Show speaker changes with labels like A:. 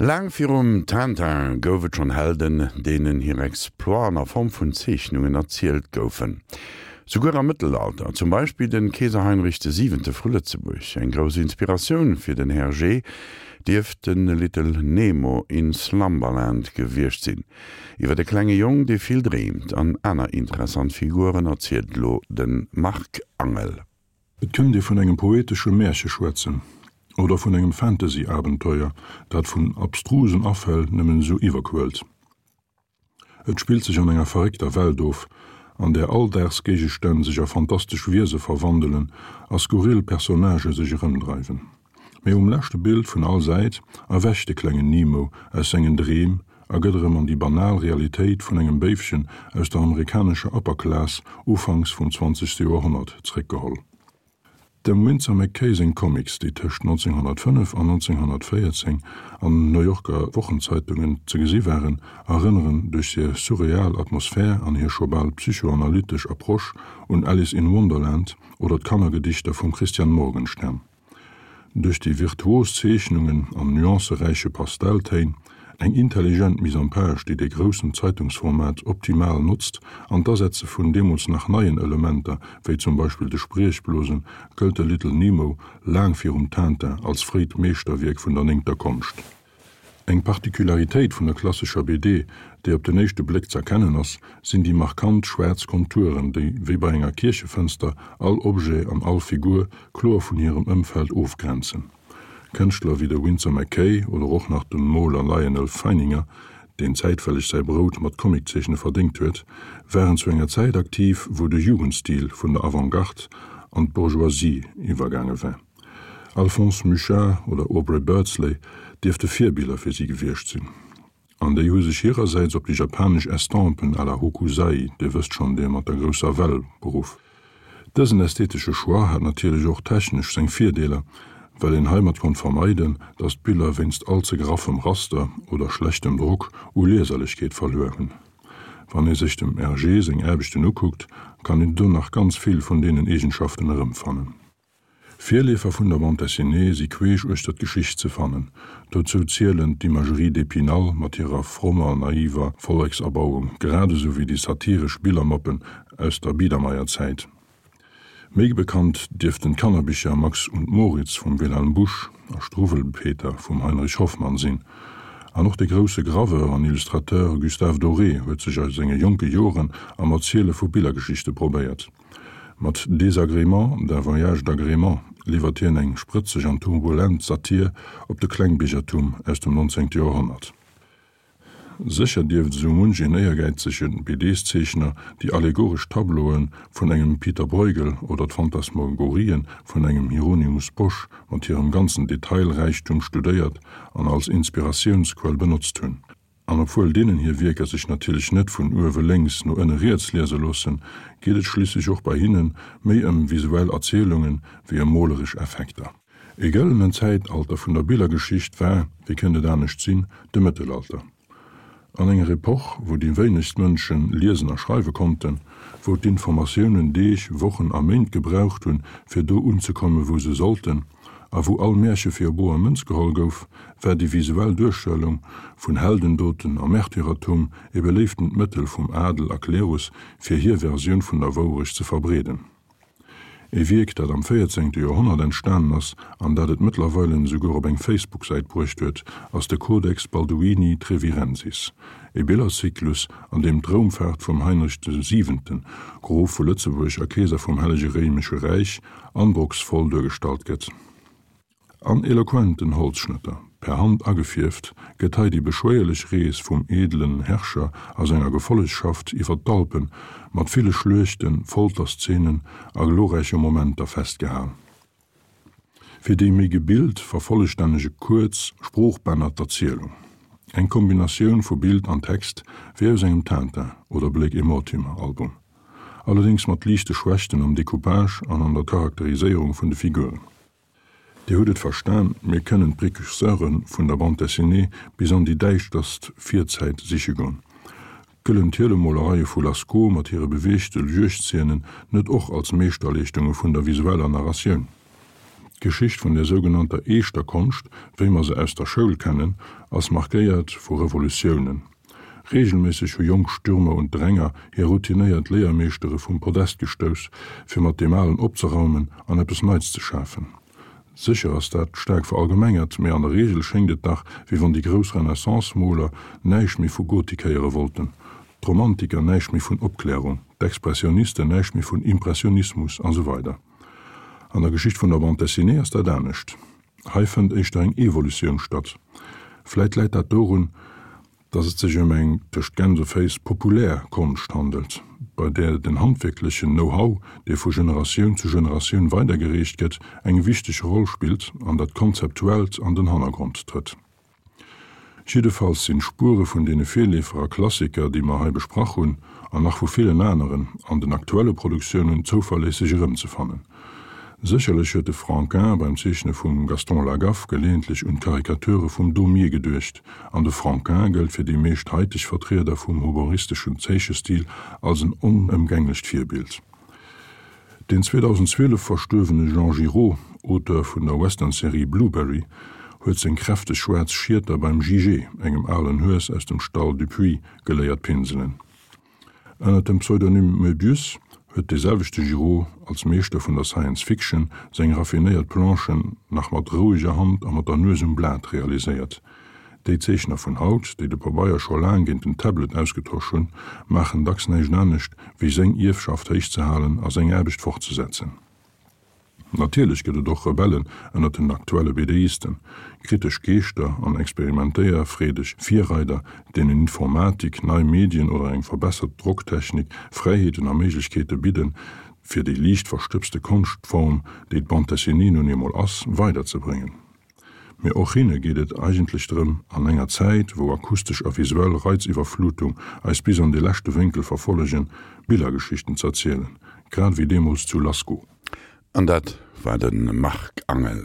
A: Laang virum Tintin gouf et schonn Helden, deenen hir Exploiten a Form vun Zeechnungen erzielt goufen. Souguer am Mëttelalter, zum Beispill de Keeser Heinrich de Siwente vu Lëtzebuerg. Eng grouss Inspiratioun fir den Hergé dierft de Little Nemo in Slumberland gewiescht sinn. Iwwer e klenge Jong, dee vill dreemt, an aner interessant Figuren erzielt elo de Marc Angel.
B: Et kënnt ee vun engem poetesche Märche schwätzen oder vun engem Fantasy-Abenteuer, dat vun abstrusen Afäll nëmmen esou iwwerquëllt. Et spillt sech an enger verréckter Welt of, an där Alldagsgéigestänn sech a fantastesch Wiese verwandelen a skurril Personnagë sech erëmdreiwen. Mee um leschte Bild vun all Säit erwächt de klengen Nemo aus sengen Dreem a gëtt erëm an déi banal Realitéit vun engem Béifchen aus der amerikanescher Upper Class ufanks vum zwanzegste Joerhonnert zréckgeholl. Dem Winsor McCay seng Comics, déi tëscht 1905 an 1914 an den New Yorker Wochenzeitungen ze gesi waren, erënneren duerch hir surreal Atmosphär an hir scho bal psychoanalytesch Approche un Alice in Wonderland oder d'Kannergedichter vum Christian Morgenstern. Duerch déi virtuos Zeechnungen an nuanceräiche Pastelltéin, eng intelligent Mise en page, déi de groussen Zeitungsformat optimal notzt, an d'Asetze vun deemools nach neien Elementer, wéi zum Beispill de Spriechblosen, gëllt de Little Nemo laang virum Tintin als fréit Meeschterwierk vun der néngter Konscht. Eng Particularitéit vun der klassescher BD, déi op den éischte Bléck z'erkennen ass, sinn déi markant schwaarz Konturen, déi, wéi bei enger Kierchefënster, all Objet an all Figur kloer vun hirem Ëmfeld ofgrenzen. Kënschtler wéi de Winsor McCay oder och nach de Moler Lyonel Feininger, deen zäitwelleg säi Brout mat Comiczeechne verdéngt huet, waren zu enger Zäit aktiv, wou de Jugendstil vun der Avantgarde an d'Bourgeoisie iwwergaange war. Alphonse Mucha oder Aubrey Beardsley dierfte Virbiller fir si gewiescht sinn. An déi hu sech hirersäits op déi japanesch Estampen à la Hokusai, Dir wësst schonn, dee mat der grousser Well, beruff. Dësen ästhetesche Choix hat natierlech och technesch seng Virdeeler, well een heimat konnt vermeiden, datt d'Biller wéinst all ze graffem Raster oder schlechtem Drock u Lieserlechkeet verluer hunn. Wann ee sech dem Hergé seng Aarbechten ukuckt, kann een do nach ganz vill vun deenen Eegenschaften erëmfannen. Virleefer vun der Bande dessinée si queesch uechter d'Geschicht ze fannen. Dozou zielen d'Imagerie d'Épinal mat hirer frommer, naiver Vollekserbauung, grad esou wéi déi satiresch Billermoppen aus der Biedermeierzäit. Méi bekannt dierften d'Kannerbicher Max und Moritz vum Wilhelm Busch a Struwwelpeter vum Heinrich Hoffmann sinn. An och de grousse Graveur an Illustrateur Gustave Doré huet sech a senge jonke Joren am Erziele vu Billergeschichte probéiert. Mat Désagréments d'un voyage d'agrément liwwert hien eng sprëtzeg an turbulent Satir op de Klengbiergertum aus dem 19. Joerhonnert. Sécher dierft esou munch een éiergäizege BDs-Zeechner déi allegoresch Tableaue vun engem Pieter Bruegel oder d'Phantasmagorien vun engem Hieronymus Bosch mat hirem ganzen Detailräichtum studéiert an als Inspiratiounsquell benotzt hunn. An obwuel deenen hir Wierker sech natierlech net vun uewe lénks no ënne riets liese loossen, geet et schliisslech och bei hinne méi ëm visuell Erzielunge wéi ëm moleresch Effekter. E gëllenen Zäitalter vun der Billergeschicht war, wéi kënnt et anescht sinn, de Mëttelalter. An enger Epoch, wou déi wéinegst Mënsche liesen a schreiwe konnten, wou d'Informatiounen Deeg, Wochen a Méint gebraucht hunn, fir do unzekommen, wou se sollten, a wou all Märche fir boer Mënz geholl gouf, war déi visuell Duerstellung vun Heldendoten a Märtyrertum e beléiftent Mëttel vum Adel a Klerus, fir hir Versioun vun der Wourecht ze verbreeden. E Wierk, dat am véierzéngte Joerhonnert entstanen ass an dat et mëttlerweile esouguer op eng Facebook-Säit bruecht huet, ass de Codex Balduini Trevirensis, e Billerzyklus, an deem d'Roumfaart vum Heinrich de Siwenten, Grof vu Lëtzebuerg a Keeser vum Hellege Réimesche Räich, androcksvoll duergestallt gëtt. An eloquenten Holzschnëtter, per Hand agefierft, gëtt hei déi beschwéierlech Rees vum edelen Herrscher a senger Gefollegschaft iwwer d'Alpen mat ville Schluechten, Folterszenen a glorräiche Momenter festgehal. Fir déi méi gebilt vervollstännege kuerz Sproochbänner d'Erzielung. Eng Kombinatioun vu Bild an Text wéi aus engem Tintin oder Blake et Mortimer Album. Allerdéngs mat liichte Schwächten am Decoupage an an der Charakteriséierung vun de Figuren. Dir hutt et verstan, mir kënnen d'Précurseure vun der Bande dessinée bis an déi däischterst Virzäit siche goen. Gëllen d'Hielemolereie vu Lascaux mat hire beweegte Juegdzeenen net och als Meeschterleeschtunge vun der visueller Narratioun? D'Geschicht vun der sougenannter eeschter Konscht, wéi mer se aus der Schoul kennen, ass markéiert vu Revolutiounen. Reegelméisseg hu jonk Stürmer und Dränger hir routinéiert Léiermeeschtere vum Podest gestouss, fir mat deem Alen opzeraumen an eppes Neits ze schafen. Sécher ass dat staark verallgemengert, mee an der Reegel schéngt et dach, wéi wann déi grouss Renaissance-Moler näischt méi vu Gotik héiere wollten, d'Romantiker näischt méi vun Opklärung, d'Expressionisten näischt méi vun Impressionismus a sou weider. An der Geschicht vun der Bande dessinée ass dat anescht. Hei fënnt éischter eng Evolutioun statt. Vläit läit dat dorun, datt et sech ëm eng, tëscht Gänseféiss, populär Konscht handelt, bei där den handwierklechen Know-how, dee vu Generatioun zu Generatioun weidergereecht gëtt, eng wichteg Roll spillt an dat Konzeptuellt an den Hannergrond trëtt. Jiddefalls sinn d'Spuere vun deene Virleefer a Klassiker, déi mer hei besprach hunn, an nach vu villen aneren, an den aktuelle Produktiounen zouverléisseg erëmzefannen. Sécherlech huet de Franquin beim Zeechne vum Gaston Lagaffe geleeëntlech un d'Karikature vum Daumier geduecht, an de Franquin gëllt fir déi meescht haiteg Vertrieder vum humoristeschen Zeechestil als en onëmgänglecht Virbild. Deen 2012 verstuerwene Jean Giraud, Auteur vun der Western-Serie Blueberry, huet seng kräfteg schwaarz Schieter beim Jijé, engem alen Hues aus dem Stall Dupuis, geléiert pinselen. Ënner dem Pseudonym Möbius huet dee selwechte Giraud als Meeschter vun der Science Fiction seng raffinéiert Planchen nach mat roueger Hand a mat der Nues um Blat realiséiert. Déi Zeechner vun haut, déi de Pabeier scho laang géint den Tablet ausgetosch hunn, maachen dacks näischt anescht, wéi seng Ierfschaft héich ze halen a seng Aarbecht fortzesetzen. Natierlech gëtt et och Rebellen ënnert den aktuelle BDisten, kritesch Geeschter an experimentéierfreedeg Virreider, deenen Informatik, nei Medien oder eng verbessert Drocktechnik Fräiheeten a Méiglechkeete bidden, fir déi liicht verstëbste Konschtform, déi d'Bande dessinée nun eemol ass, weiderzebréngen. Mee och hinne geet et eigentlech drëm, an enger Zäit, wou akustesch a visuell Reiziwwerflutung eis bis an de leschte Wénkel verfollegen, Billergeschichten z'erzielen, grad ewéi deemools zu Lascaux.
A: An dat war de Marc Angel.